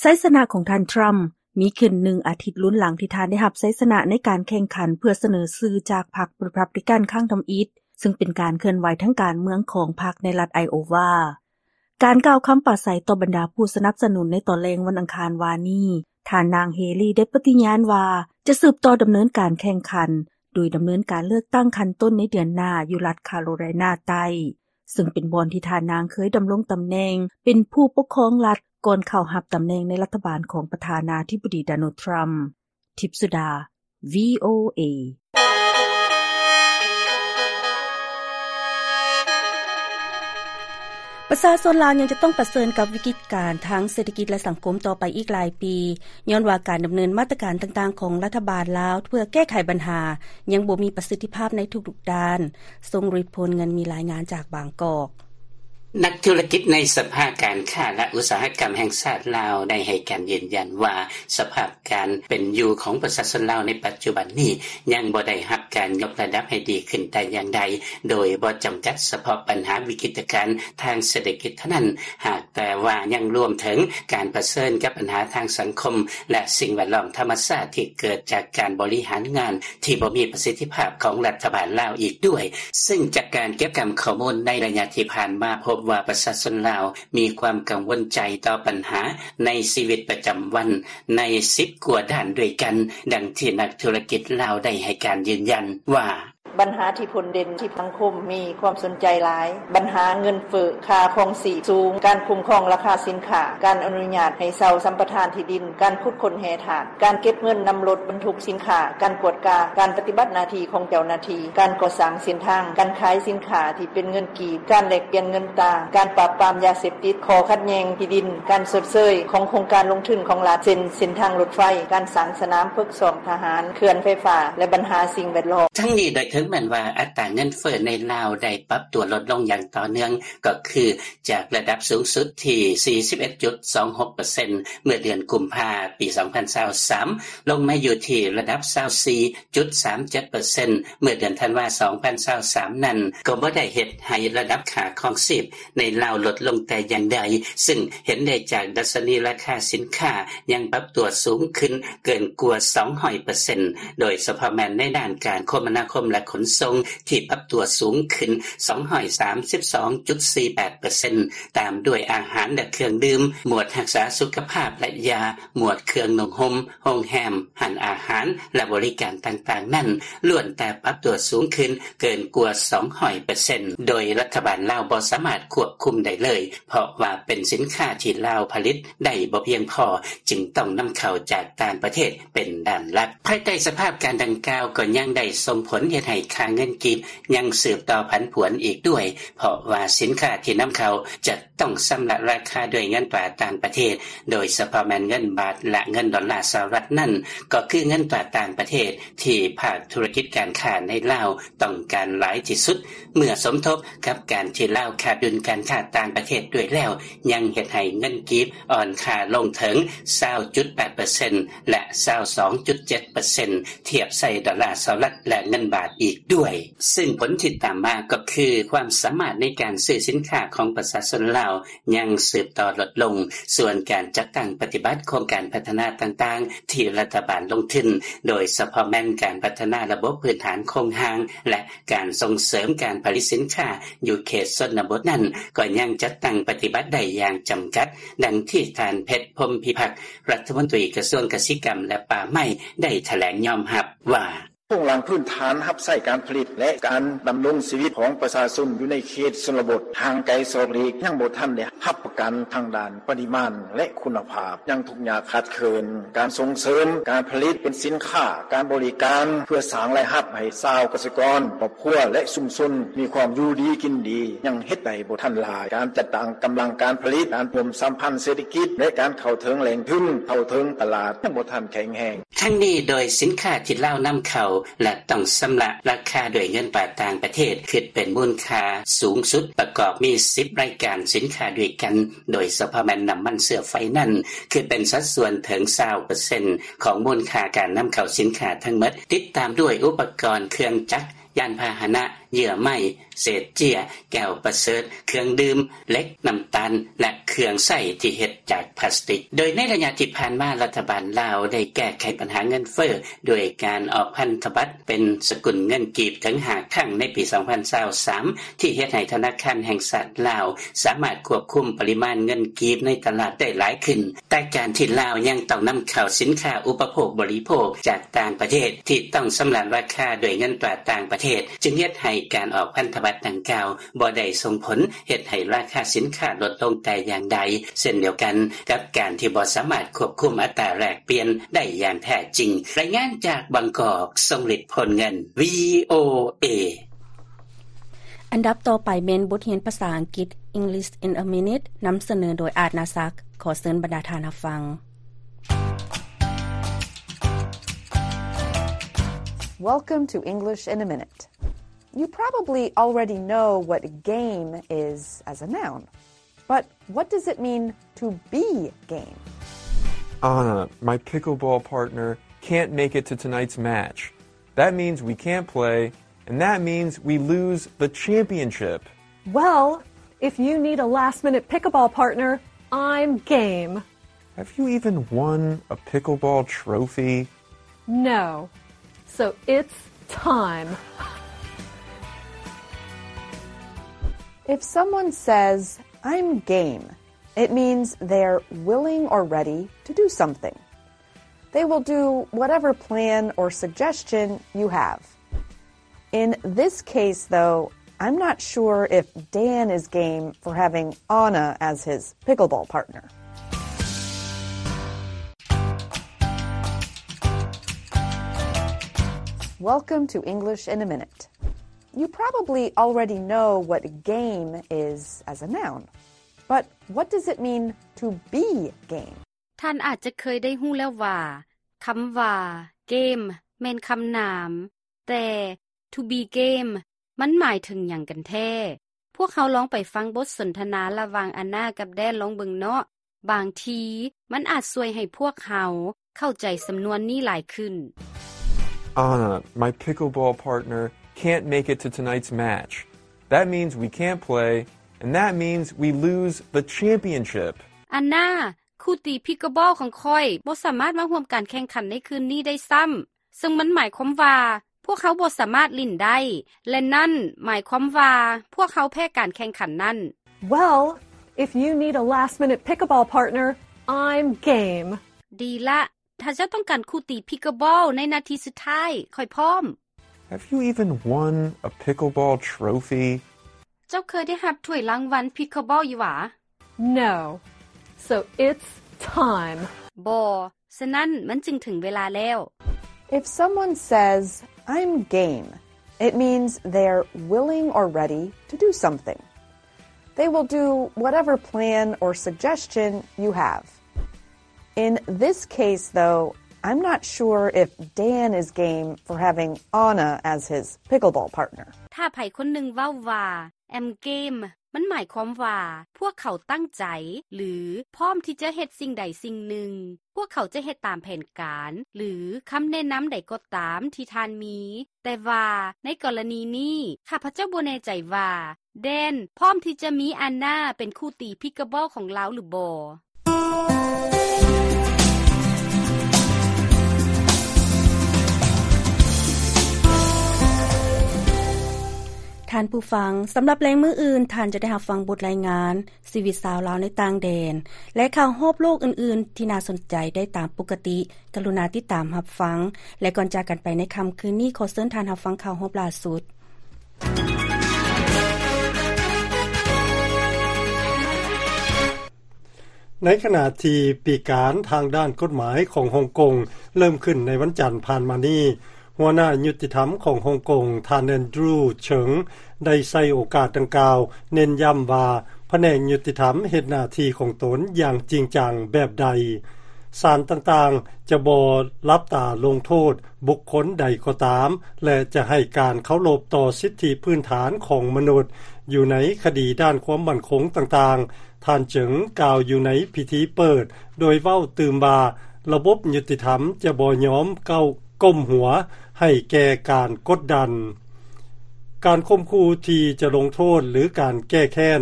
ໄຊຊະນະຂອງທ່ານ ທຣຳ ມີຂຶ້ນໜຶ່ງອາທິດລຸນຫຼັງທີ່ທ່ານໄດ້ຮັບໄຊຊະນະໃນການແຂ່ງຂັນເພື່ອສະເໜີຊື່ຈາກພັກ Republican ຄັ້ງທຳອິດ, ເຊິ່ງເປັນການເຄື່ອນໄຫວທາງການເມືອງຂອງພັກໃນລັດໄອໂອວາ. ການກ່າວຄຳປາໄສຕໍ່ບັນດາຜູ້ສະໜັບສະໜູນໃນຕອນແລງວັນອັງຄານວານນີ້, ທ່ານນາງ ເຮລີ ໄດ້ປະຕິຍານວ່າ ຈະສືບຕໍ່ດຳເນີນການແຂ່ງຂັນ ໂດຍດຳເນີນການເລືອກຕັ້ງຂັ້ນຕົ້ນໃນເດືອນໜ້າຢູ່ລັດຄາໂຣໄລນາໃຕ້, ເຊິ່ງເປັນບ່ອນທີ່ທ່ານນາງເຄີຍດຳລົງຕຳແໜ່ງເປັນຜູ້ປົກຄອງລັດ ກ່ອນເຂົ້າຮັບຕຳແໜ່ງໃນລັດຖະບານຂອງປະທານາທິບໍດີ ໂດນັລ ທຣຳ. ທິບສຸດາ ວີໂອເອ. ປະຊາຊົນລາວຍັງຈະຕ້ອງປະເຊີນກັບວິກິດການທາງເສດຖະກິດ ແລະ ສັງຄົມຕໍ່ໄປອີກຫຼາຍປີ, ຍ້ອນວ່າການດຳເນີນມາດຕະການຕ່າງໆຂອງລັດຖະບານລາວເພື່ອແກ້ໄຂບັນຫາ ຍັງບໍ່ມີປະສິດທິພາບໃນທຸກໆດ້ານ. ຊົງ ລິດພົນ ເງິນມີ ລາຍງານຈາກບາງກອກ. ນັກທຸລະກິດໃນສະພາການຄ້າ ແລະ ອຸດສາຫະກຳແຫ່ງຊາດລາວ ໄດ້ໃຫ້ການຢືນຢັນວ່າ ສະພາບການເປັນຢູ່ຂອງປະຊາຊົນລາວໃນປັດຈຸບັນນີ້ ຍັງບໍ່ໄດ້ຮັບການຍົກລະດັບໃຫ້ດີຂຶ້ນແຕ່ຢ່າງໃດ, ໂດຍບໍ່ຈຳກັດສະເພາະບັນຫາວິກິດການທາງເສດຖະກິດເທົ່ານັ້ນ, ຫາກແຕ່ວ່າຍັງລວມເຖິງການປະເຊີນກັບບັນຫາທາງສັງຄົມ ແລະ ສິ່ງແວດລ້ອມທຳມະຊາດທີ່ເກີດຈາກການບໍລິຫານງານທີ່ບໍ່ມີປະສິດທິພາບຂອງລັດຖະບານລາວອີກດ້ວຍ. ເຊິ່ງຈາກການເກັບກຳຂໍ້ມູນໃນໄລຍະທີ່ຜ່ານມາ ພົບວ່າປະຊາຊົນລາວມີຄວາມກັງວົນໃຈຕໍ່ບັນຫາໃນຊີວິດປະຈຳວັນໃນສິບກວ່າດ້ານດ້ວຍກັນ, ດັ່ງທີ່ນັກທຸລະກິດລາວໄດ້ໃຫ້ການຢືນຢັນວ່າ ບັນຫາທີ່ພົ້ນເດັ່ນທີ່ສັງຄົມມີຄວາມສົນໃຈຫຼາຍ, ບັນຫາເງິນເຟີ້, ຄ່າຄອງຊີບສູງ, ການຄຸ້ມຄອງລາຄາສິນຄ້າ, ການອະນຸຍາດໃຫ້ເຊົ່າສຳປະທານທີ່ດິນ, ການຂຸດຄົ້ນແຮ່ທາດ, ການເກັບເງິນນຳລົດບັນທຸກສິນຄ້າ, ການກວດກາການປະຕິບັດໜ້າທີ່ຂອງເຈົ້າໜ້າທີ່, ການກໍ່ສ້າງເສັ້ນທາງ, ການຂາຍສິນຄ້າທີ່ເປັນເງິນກີບ, ການແລກປ່ຽນເງິນຕາ, ການປາບປາມຢາເສບຕິດ, ຂໍ້ຂັດແຍ່ງທີ່ດິນ, ການຊົດເຊີຍຂອງໂຄງການລົງທຶນຂອງລັດ ເຊັ່ນ ເສັ້ນທາງລົດໄຟ, ການສ້າງສະໜາມຝຶກຊ້ອມທະຫານ, ເຂື່ອນໄຟຟ້າ ແລະ ບັນຫາສິ່ງແວດລ້ອມ. ທັງນີ້ ໂດຍເຖິງແມ່ນວ່າອັດຕາເງິນເຟີ້ໃນລາວໄດ້ປັບຕົວລົດລົງຢ່າງຕໍ່ເນື່ອງ, ກໍຄືຈາກລະດັບສູງສຸດທີ່ສີ່ສິບເອັດຈຸດສອງຫົກເປີເຊັນ ເມື່ອເດືອນກຸມພາ ປີສອງພັນຊາວສາມ ລົງມາຢູ່ທີ່ລະດັບຊາວສີ່ຈຸດສາມເຈັດເປີເຊັນ ເມື່ອເດືອນທັນວາ ສອງພັນຊາວສາມ ນັ້ນ ກໍບໍ່ໄດ້ເຮັດໃຫ້ລະດັບຄ່າຄອງຊີບໃນລາວລົດລົງແຕ່ຢ່າງໃດ, ເຊິ່ງເຫັນໄດ້ຈາກດັດຊະນີລາຄາສິນຄ້າຍັງປັບຕົວສູງຂຶ້ນເກີນກວ່າສອງຮ້ອຍເປີເຊັນ ໂດຍສະເພາະແມ່ນໃນດ້ານການຄົມມະນາຄົມ ແລະ ຂົນສົ່ງ ທີ່ປັບຕົວສູງຂຶ້ນສອງຮ້ອຍສາມສິບສອງຈຸດສີ່ແປດເປີເຊັນ ຕາມດ້ວຍອາຫານ ແລະ ເຄື່ອງດື່ມ, ໝວດຮັກສາສຸຂະພາບ ແລະ ຢາ, ໝວດເຄື່ອງນຸ່ງຫົ່ມ, ໂຮງແຮມ, ຮ້ານອາຫານ ແລະ ບໍລິການຕ່າງໆນັ້ນ ລ້ວນແຕ່ປັບຕົວສູງຂຶ້ນເກີນກວ່າສອງຮ້ອຍເປີເຊັນ ໂດຍລັດຖະບານລາວບໍ່ສາມາດຄວບຄຸມໄດ້ເລີຍ, ເພາະວ່າເປັນສິນຄ້າທີ່ລາວຜະລິດໄດ້ບໍ່ພຽງພໍ, ຈຶ່ງຕ້ອງນຳເຂົ້າຈາກຕ່າງປະເທດເປັນດ້ານຫຼັກ. ພາຍໃຕ້ສະພາບການດັ່ງກ່າວ ກໍຍັງໄດ້ສົ່ງຜົນເຮັດໃຫ້ຄ່າເງິນກີບຍັງສືບຕໍ່ຜັນຜວນອີກດ້ວຍ, ເພາະວ່າສິນຄ້າທີ່ນຳເຂົ້າຈະ ຕ້ອງຊຳລະລາຄາດ້ວຍເງິນຕາຕ່າງປະເທດ, ໂດຍສະເພາະແມ່ນເງິນບາດ ແລະ ເງິນດອນລາສະຫະລັດນັ້ນ, ກໍຄືເງິນຕາຕ່າງປະເທດທີ່ພາກທຸລະກິດການຄ້າໃນລາວຕ້ອງການຫຼາຍທີ່ສຸດ, ເມື່ອສົມທົບກັບການທີ່ລາວຂາດດຸນການຄ້າຕ່າງປະເທດດ້ວຍແລ້ວ, ຍັງເຮັດໃຫ້ເງິນກີບອ່ອນຄ່າລົງເຖິງຊາວຈຸດແປດເປີເຊັນ ແລະ ຊາວສອງຈຸດເຈັດເປີເຊັນ ທຽບໃສ່ດອນລາສະຫະລັດ ແລະ ເງິນບາດອີກດ້ວຍ. ເຊິ່ງຜົນທີ່ຕາມມາກໍຄື ຄວາມສາມາດໃນການຊື້ສິນຄ້າຂອງປະຊາຊົນລາວຍັງສືບຕໍ່ລົດລົງ, ສ່ວນການຈັດຕັ້ງປະຕິບັດໂຄງການພັດທະນາຕ່າງໆທີ່ລັດຖະບານລົງທຶນ, ໂດຍສະເພາະແມ່ນການພັດທະນາລະບົບພື້ນຖານໂຄງຮ່າງ ແລະ ການສົ່ງເສີມການຜະລິດສິນຄ້າຢູ່ເຂດຊົນນະບົດນັ້ນ ກໍຍັງຈັດຕັ້ງປະຕິບັດໄດ້ຢ່າງຈຳກັດ, ດັ່ງທີ່ທ່ານ ເພັດ ພົມພິພັກ ລັດຖະມົນຕີກະຊວງກະສິກຳ ແລະ ປ່າໄມ້ ໄດ້ຖະແຫຼງຍອມຮັບວ່າ: ໂຄງລ່າງພື້ນຖານຮັບໃຊ້ການຜະລິດ ແລະ ການດຳລົງຊີວິດຂອງປະຊາຊົນຢູ່ໃນເຂດຊົນນະບົດຫ່າງໄກສອກຫຼີກ ຍັງບໍ່ທັນໄດ້ຮັບປະກັນທາງດ້ານປະລິມານ ແລະ ຄຸນນະພາບ ຍັງທຸກຍາກຂາດເຂີນ. ການສົ່ງເສີມການຜະລິດເປັນສິນຄ້າ, ການບໍລິການ ເພື່ອສ້າງລາຍຮັບໃຫ້ຊາວກະສິກອນ, ຄອບຄົວ ແລະ ຊຸມຊົນມີຄວາມຢູ່ດີກິນດີ ຍັງເຮັດໄດ້ບໍ່ທັນຫຼາຍ. ການຈັດຕັ້ງກຳລັງການຜະລິດ, ການຮ່ວມສຳພັນເສດຖະກິດ ແລະ ການເຂົ້າເຖິງແຫຼ່ງທຶນ, ເຂົ້າເຖິງຕະຫຼາດ ຍັງບໍ່ທັນແຂງແຮງ. ທັງນີ້ ໂດຍສິນຄ້າທີ່ລາວນຳເຂົ້າ ແລະ ຕ້ອງຊຳລະລາຄາດ້ວຍເງິນຕາຕ່າງປະເທດ ຄິດເປັນມູນຄ່າສູງສຸດ ປະກອບມີສິບລາຍການສິນຄ້າດ້ວຍກັນ, ໂດຍສະເພາະແມ່ນນ້ຳມັນເຊື້ອໄຟນັ້ນ ຄິດເປັນສັດສ່ວນເຖິງຊາວເປີເຊັນຂອງມູນຄ່າການນຳເຂົ້າສິນຄ້າທັງໝົດ, ຕິດຕາມດ້ວຍອຸປະກອນເຄື່ອງຈັກ, ຍານພາຫະນະ, ເຍື່ອໄມ້, ເສດເຈ້ຍ, ແກ້ວປະເສີດ, ເຄື່ອງດື່ມ, ເຫຼັກ, ນ້ຳຕານ ແລະ ເຄື່ອງໃຊ້ທີ່ເຮັດຈາກພລາສຕິກ. ໂດຍໃນໄລຍະທີ່ຜ່ານມາ ລັດຖະບານລາວໄດ້ແກ້ໄຂບັນຫາເງິນເຟີ້ດ້ວຍການອອກພັນທະບັດເປັນສະກຸນເງິນກີບເຖິງຫ້າຄັ້ງໃນປີສອງພັນຊາວສາມ ທີ່ເຮັດໃຫ້ທະນາຄານແຫ່ງຊາດລາວສາມາດຄວບຄຸມປະລິມານເງິນກີບໃນຕະຫຼາດໄດ້ຫຼາຍຂຶ້ນ. ແຕ່ການທີ່ລາວຍັງຕ້ອງນຳເຂົ້າສິນຄ້າອຸປະໂພກບໍລິໂພກຈາກຕ່າງປະເທດ ທີ່ຕ້ອງຊຳລະລາຄາດ້ວຍເງິນຕາຕ່າງປະເທດ ຈຶ່ງເຮັດໃຫ້ການອອກພັນທະບັດດັ່ງກ່າວ ບໍ່ໄດ້ສົ່ງຜົນເຮັດໃຫ້ລາຄາສິນຄ້າລົດລົງແຕ່ຢ່າງໃດ, ເຊັ່ນດຽວກັນກັບການທີ່ບໍ່ສາມາດຄວບຄຸມອັດຕາແລກປ່ຽນໄດ້ຢ່າງແທ້ຈິງ. ລາຍງານຈາກບາງກອກ, ຊົງລິດ ໂພນເງິນ, ວີໂອເອ. ອັນດັບຕໍ່ໄປແມ່ນບົດຮຽນພາສາອັງກິດ English in a Minute ນຳສະເໜີໂດຍ ອາດ ນາສັກ. ຂໍເຊີນບັນດາທ່ານຮັບຟັງ. Welcome to English in a Minute. You probably already know what game is as a noun, but what does it mean to be game? Anna, my pickleball partner, can't make it to tonight's match. That means we can't play, and that means we lose the championship. Well, if you need a last-minute pickleball partner, I'm game. Have you even won a pickleball trophy? No. So it's time. If someone says, "I'm game," it means they're willing or ready to do something. They will do whatever plan or suggestion you have. In this case, though, I'm not sure if Dan is game for having Anna as his pickleball partner. Welcome to English in a Minute. You probably already know what game is as a noun, but what does it mean to be game? ທ່ານອາດຈະເຄີຍໄດ້ຮູ້ແລ້ວວ່າ ຄຳວ່າ ເກມ ແມ່ນຄຳນາມ, ແຕ່ To be game ມັນໝາຍເຖິງຫຍັງກັນແທ້? ພວກເຮົາລອງໄປຟັງບົດສົນທະນາລະຫວ່າງອານາກັບແດນລອງເບິ່ງເນາະ. ບາງທີມັນອາດຊ່ວຍໃຫ້ພວກເຮົາເຂົ້າໃຈສຳນວນນີ້ຫຼາຍຂຶ້ນ. Anna, my pickleball partner, can't make it to tonight's match. That means we can't play, and that means we lose the championship. ອານາ, ຄູ່ຕີພິກເກິລບອລຂອງຂ້ອຍບໍ່ສາມາດມາຮ່ວມການແຂ່ງຂັນໃນຄືນນີ້ໄດ້ຊ້ຳ, ເຊິ່ງມັນໝາຍຄວາມວ່າພວກເຮົາບໍ່ສາມາດຫຼິ້ນໄດ້ ແລະ ນັ້ນໝາຍຄວາມວ່າພວກເຮົາແພ້ການແຂ່ງຂັນນັ້ນ. Well, if you need a last-minute pickleball partner, I'm game. ດີລະ, ຖ້າເຈົ້າຕ້ອງການຄູ່ຕີພິກເກິລບອລໃນນາທີສຸດທ້າຍ, ຂ້ອຍພ້ອມ. Have you even won a pickleball trophy? ເຈົ້າເຄີຍໄດ້ຮັບຖ້ວຍລາງວັນພິກເກິລບອລຢູ່ຫວາ? No. So it's time. ບໍ່, ສະນັ້ນມັນຈຶ່ງເຖິງເວລາແລ້ວ. If someone says, "I'm game," it means they're willing or ready to do something. They will do whatever plan or suggestion you have. In this case, though, I'm not sure if Dan is game for having Anna as his pickleball partner. ຖ້າໃຜຄົນໜຶ່ງເວົ້າວ່າ I'm game, ມັນໝາຍຄວາມວ່າພວກເຂົາຕັ້ງໃຈ ຫຼື ພ້ອມທີ່ຈະເຮັດສິ່ງໃດສິ່ງໜຶ່ງ. ພວກເຂົາຈະເຮັດຕາມແຜນການ ຫຼື ຄຳແນະນຳໃດກໍຕາມທີ່ທ່ານມີ. ແຕ່ວ່າໃນກໍລະນີນີ້, ຂ້າພະເຈົ້າບໍ່ແນ່ໃຈວ່າ ແດນ ພ້ອມທີ່ຈະມີອານາເປັນຄູ່ຕີພິກເກິລບອລຂອງລາວຫຼືບໍ່. ແ ທ່ານຜູ້ຟັງ, ສຳລັບແລງມື້ອື່ນ, ທ່ານຈະໄດ້ຮັບຟັງບົດລາຍງານ ຊີວິດຊາວລາວໃນຕ່າງແດນ ແລະ ຂ່າວຮອບໂລກອື່ນໆ ທີ່ໜ້າສົນໃຈໄດ້ຕາມປົກກະຕິ. ກະລຸນາຕິດຕາມຮັບຟັງ, ແລະ ກ່ອນຈາກກັນໄປໃນຄ່ຳຄືນນີ້, ຂໍເຊີນທ່ານຮັບຟັງຂ່າວຮອບລ່າສຸດ. ໃນຂະນະທີ່ປີການທາງດ້ານກົດໝາຍຂອງຮົງກົງເລີ່ມຂຶ້ນໃນວັນຈັນຜ່ານມານີ້, ຫົວໜ້າຍຸຕິທຳຂອງຮົງກົງ ທ່ານ ແອນດຣູ ເສີງ ໄດ້ໃຊ້ໂອກາດດັ່ງກ່າວເນັ້ນຢ້ຳວ່າ ພະແນກຍຸຕິທຳເຮັດໜ້າທີ່ຂອງຕົນຢ່າງຈິງຈັງແບບໃດ. ສານຕ່າງໆຈະບໍ່ຫຼັບຕາລົງໂທດບຸກຄົນໃດກໍຕາມ ແລະ ຈະໃຫ້ການເຄົາລົບຕໍ່ສິດທິພື້ນຖານຂອງມະນຸດຢູ່ໃນຄະດີດ້ານຄວາມໝັ້ນຄົງຕ່າງໆ, ທ່ານເຈີງກ່າວຢູ່ໃນພິທີເປີດ, ໂດຍເວົ້າຕື່ມວ່າ ລະບົບຍຸຕິທຳຈະບໍ່ຍອມເກົ້າ ກົ້ມຫົວໃຫ້ແກ່ການກົດດັນ, ການຂົ່ມຂູ່ທີ່ຈະລົງໂທດ ຫຼື ການແກ້ແຄ້ນ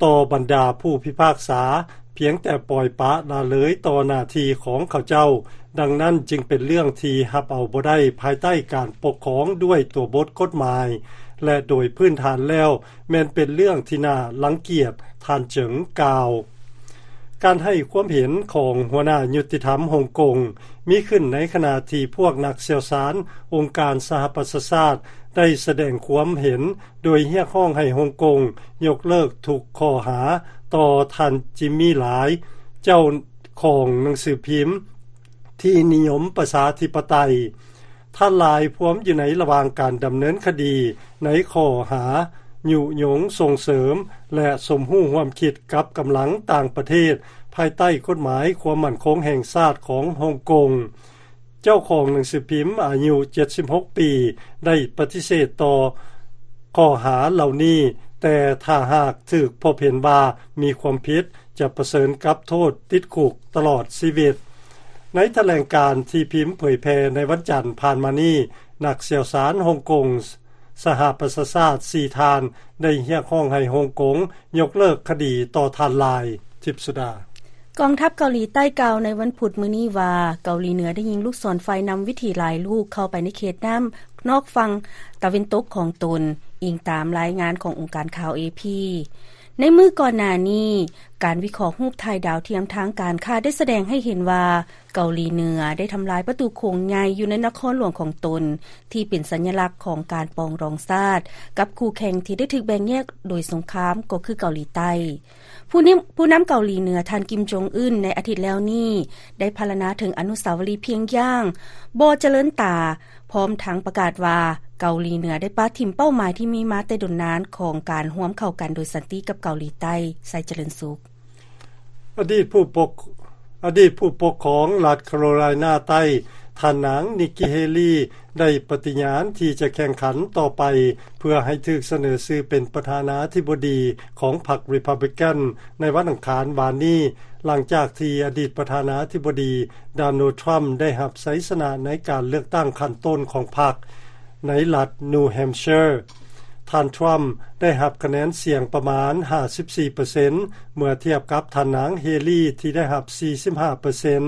ຕໍ່ບັນດາຜູ້ພິພາກສາ ພຽງແຕ່ປ່ອຍປະລະເລີຍຕໍ່ໜ້າທີ່ຂອງເຂົາເຈົ້າ. ດັ່ງນັ້ນຈຶ່ງເປັນເລື່ອງທີ່ຮັບເອົາບໍ່ໄດ້ພາຍໃຕ້ການປົກຄອງດ້ວຍຕົວບົດກົດໝາຍ ແລະ ໂດຍພື້ນຖານແລ້ວ ແມ່ນເປັນເລື່ອງທີ່ໜ້າລັງກຽດ, ທ່ານເຈີງກ່າວ. ການໃຫ້ຄວາມເຫັນຂອງຫົວໜ້າຍຸຕິທຳຮົງກົງ ມີຂຶ້ນໃນຂະນະທີ່ພວກນັກຊ່ຽວຊານອົງການສະຫະປະຊາຊາດ ໄດ້ສະແດງຄວາມເຫັນໂດຍຮຽກຮ້ອງໃຫ້ຮົງກົງຍົກເລີກທຸກຂໍ້ຫາຕໍ່ທ່ານ ຈິມມີ ລາຍ ເຈົ້າຂອງໜັງສືພິມທີ່ນິຍົມປະຊາທິປະໄຕ. ທ່ານລາຍພວມຢູ່ໃນລະຫວ່າງການດຳເນີນຄະດີໃນຂໍ້ຫາຍຸຍົງສົ່ງເສີມ ແລະ ສົມຮູ້ຮ່ວມຄິດກັບກຳລັງຕ່າງປະເທດ ພາຍໃຕ້ກົດໝາຍຄວາມໝັ້ນຄົງແຫ່ງຊາດຂອງຮົງກົງ. ເຈົ້າຂອງໜັງສືພິມອາຍຸເຈັດສິບຫົກປີ ໄດ້ປະຕິເສດຕໍ່ຂໍ້ຫາເຫຼົ່ານີ້, ແຕ່ຖ້າຫາກຖືກພົບເຫັນວ່າມີຄວາມຜິດ, ຈະປະເຊີນກັບໂທດຕິດຄຸກຕະຫຼອດຊີວິດ. ໃນຖະແຫຼງການທີ່ພິມເຜີຍແຜ່ໃນວັນຈັນຜ່ານມານີ້, ນັກຊ່ຽວຊານຮົງກົງສະຫະປະຊາຊາດສີ່ທ່ານ ໄດ້ຮຽກຮ້ອງໃຫ້ຮົງກົງຍົກເລີກຄະດີຕໍ່ທ່ານລາຍ. ທິບສຸດາ. ກອງທັບເກົາຫຼີໃຕ້ກ່າວໃນວັນພຸດມື້ນີ້ວ່າ ເກົາຫຼີເໜືອໄດ້ຍິງລູກສອນໄຟນຳວິຖີຫຼາຍລູກເຂົ້າໄປໃນເຂດນ້ຳນອກຝັ່ງຕາເວັນຕົກຂອງຕົນ, ອີງຕາມລາຍງານຂອງອົງການຂ່າວ ເອ ພີ. ໃນມື້ກ່ອນໜ້ານີ້, ການວິເຄາະຮູບຖ່າຍດາວທຽມທາງການຄ້າໄດ້ສະແດງໃຫ້ເຫັນວ່າ ເກົາຫຼີເໜືອໄດ້ທຳລາຍປະຕູໂຂງໃຫຍ່ຢູ່ໃນນະຄອນຫຼວງຂອງຕົນ ທີ່ເປັນສັນຍະລັກຂອງການປອງດອງຊາດ ກັບຄູ່ແຂ່ງທີ່ໄດ້ຖືກແບ່ງແຍກໂດຍສົງຄາມ ກໍຄືເກົາຫຼີໃຕ້. ຜູ້ນຳ ຜູ້ນຳເກົາຫຼີເໜືອ ທ່ານ ກິມ ຈົງອຶນ ໃນອາທິດແລ້ວນີ້ ໄດ້ພັນລະນາເຖິງອະນຸສາວະລີພຽງຢ່າງບໍ່ຈະເລີນຕາ, ພ້ອມທັງປະກາດວ່າ ເກົາຫຼີເໜືອໄດ້ປະຖິ້ມເປົ້າໝາຍທີ່ມີມາແຕ່ດົນນານຂອງການຮ່ວມເຂົ້າກັນໂດຍສັນຕິກັບເກົາຫຼີໃຕ້. ໄຊຈະເລີນສຸກ. ອະດີດຜູ້ປົກ ອະດີດຜູ້ປົກຄອງລັດຄາໂຣໄລນາໃຕ້ ທ່ານນາງ ນິກກີ ເຮລີ ໄດ້ປະຕິຍານທີ່ຈະແຂ່ງຂັນຕໍ່ໄປ ເພື່ອໃຫ້ຖືກສະເໜີຊື່ເປັນປະທານາທິບໍດີຂອງພັກ Republican ໃນວັນອັງຄານວານນີ້, ຫຼັງຈາກທີ່ອະດີດປະທານາທິບໍດີ ໂດນັລ ທຣຳ ໄດ້ຮັບໄຊຊະນະໃນການເລືອກຕັ້ງຂັ້ນຕົ້ນຂອງພັກໃນລັດ New Hampshire. ທ່ານ ທຣຳ ໄດ້ຮັບຄະແນນສຽງປະມານຫ້າສິບສີ່ເປີເຊັນ ເມື່ອທຽບກັບທ່ານນາງ ເຮລີ ທີ່ໄດ້ຮັບສີ່ສິບຫ້າເປີເຊັນ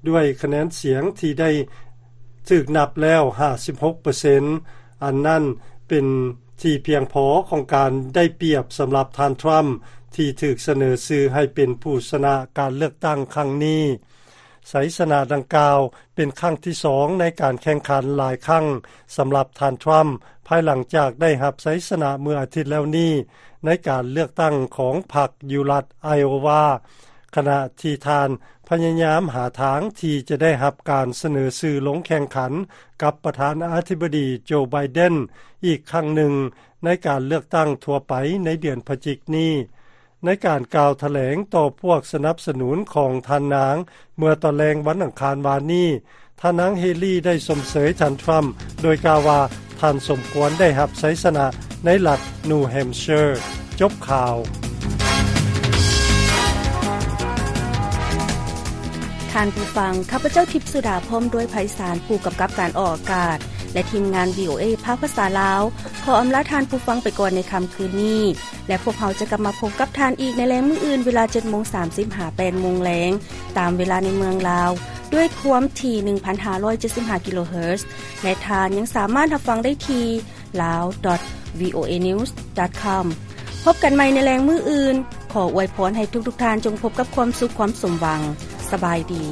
ດ້ວຍຄະແນນສຽງທີ່ໄດ້ຖືກນັບແລ້ວຫ້າສິບຫົກເປີເຊັນ. ອັນນັ້ນເປັນທີ່ພຽງພໍຂອງການໄດ້ປຽບສຳລັບທ່ານ ທຣຳ ທີ່ຖືກສະເໜີຊື່ໃຫ້ເປັນຜູ້ຊະນະການເລືອກຕັ້ງຄັ້ງນີ້. ໄຊຊະນະດັ່ງກ່າວເປັນຄັ້ງທີສອງໃນການແຂ່ງຂັນຫຼາຍຄັ້ງສຳລັບທ່ານ ທຣຳ ພາຍຫຼັງຈາກໄດ້ຮັບໄຊຊະນະເມື່ອອາທິດແລ້ວນີ້ໃນການເລືອກຕັ້ງຂອງພັກຢູ່ລັດໄອໂອວາ, ຂະນະທີ່ທ່ານພະຍາຍາມຫາທາງທີ່ຈະໄດ້ຮັບການສະເໜີຊື່ລົງແຂ່ງຂັນກັບປະທານາທິບໍດີ ໂຈ ໄບເດັນ ອີກຄັ້ງໜຶ່ງໃນການເລືອກຕັ້ງທົ່ວໄປໃນເດືອນພະຈິກນີ້. ໃນການກ່າວຖະແຫຼງຕໍ່ພວກສະໜັບສະໜູນຂອງທ່ານນາງເມື່ອຕອນແລງວັນອັງຄານວານນີ້, ທ່ານນາງເຮລີໄດ້ຊົມເຊີຍທ່ານທຣຳ ໂດຍກ່າວວ່າທ່ານສົມຄວນໄດ້ຮັບໄຊຊະນະໃນລັດ New Hampshire. ຈົບຂ່າວ. ທ່ານຜູ້ຟັງ, ຂ້າພະເຈົ້າ ທິບສຸດາ ພ້ອມດ້ວຍໄພສານ ຜູ້ກຳກັບການອອກອາກາດ ແລະ ທີມງານ ວີໂອເອ ພາກພາສາລາວ ຂໍອຳລາທ່ານຜູ້ຟັງໄປກ່ອນໃນຄ່ຳຄືນນີ້. ແລະ ພວກເຮົາຈະກັບມາພົບກັບທ່ານອີກໃນແລງມື້ອື່ນ ເວລາເຈັດໂມງສາມສິບ ຫາ ແປດໂມງແລງ ຕາມເວລາໃນເມືອງລາວ ດ້ວຍຄວາມຖີ່ ໜຶ່ງພັນຫ້າຮ້ອຍເຈັດສິບຫ້າ ກິໂລເຮີດ ແລະ ທ່ານຍັງສາມາດຮັບຟັງໄດ້ທີ່ lawdot วีโอเอนิวส์ดอทคอม พบกันใหม่ในแลงมื้ออื่น ขออวยพรให้ทุกๆท่านจงพบกับความสุขความสมหวัง สบายดี.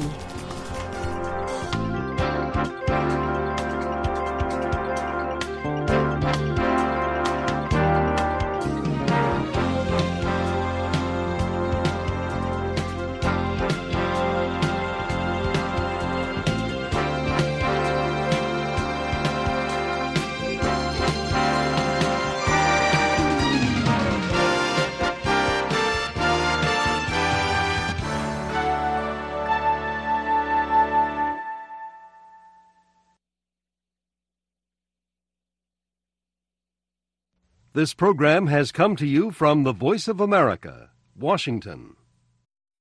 This program has come to you from the Voice of America, Washington.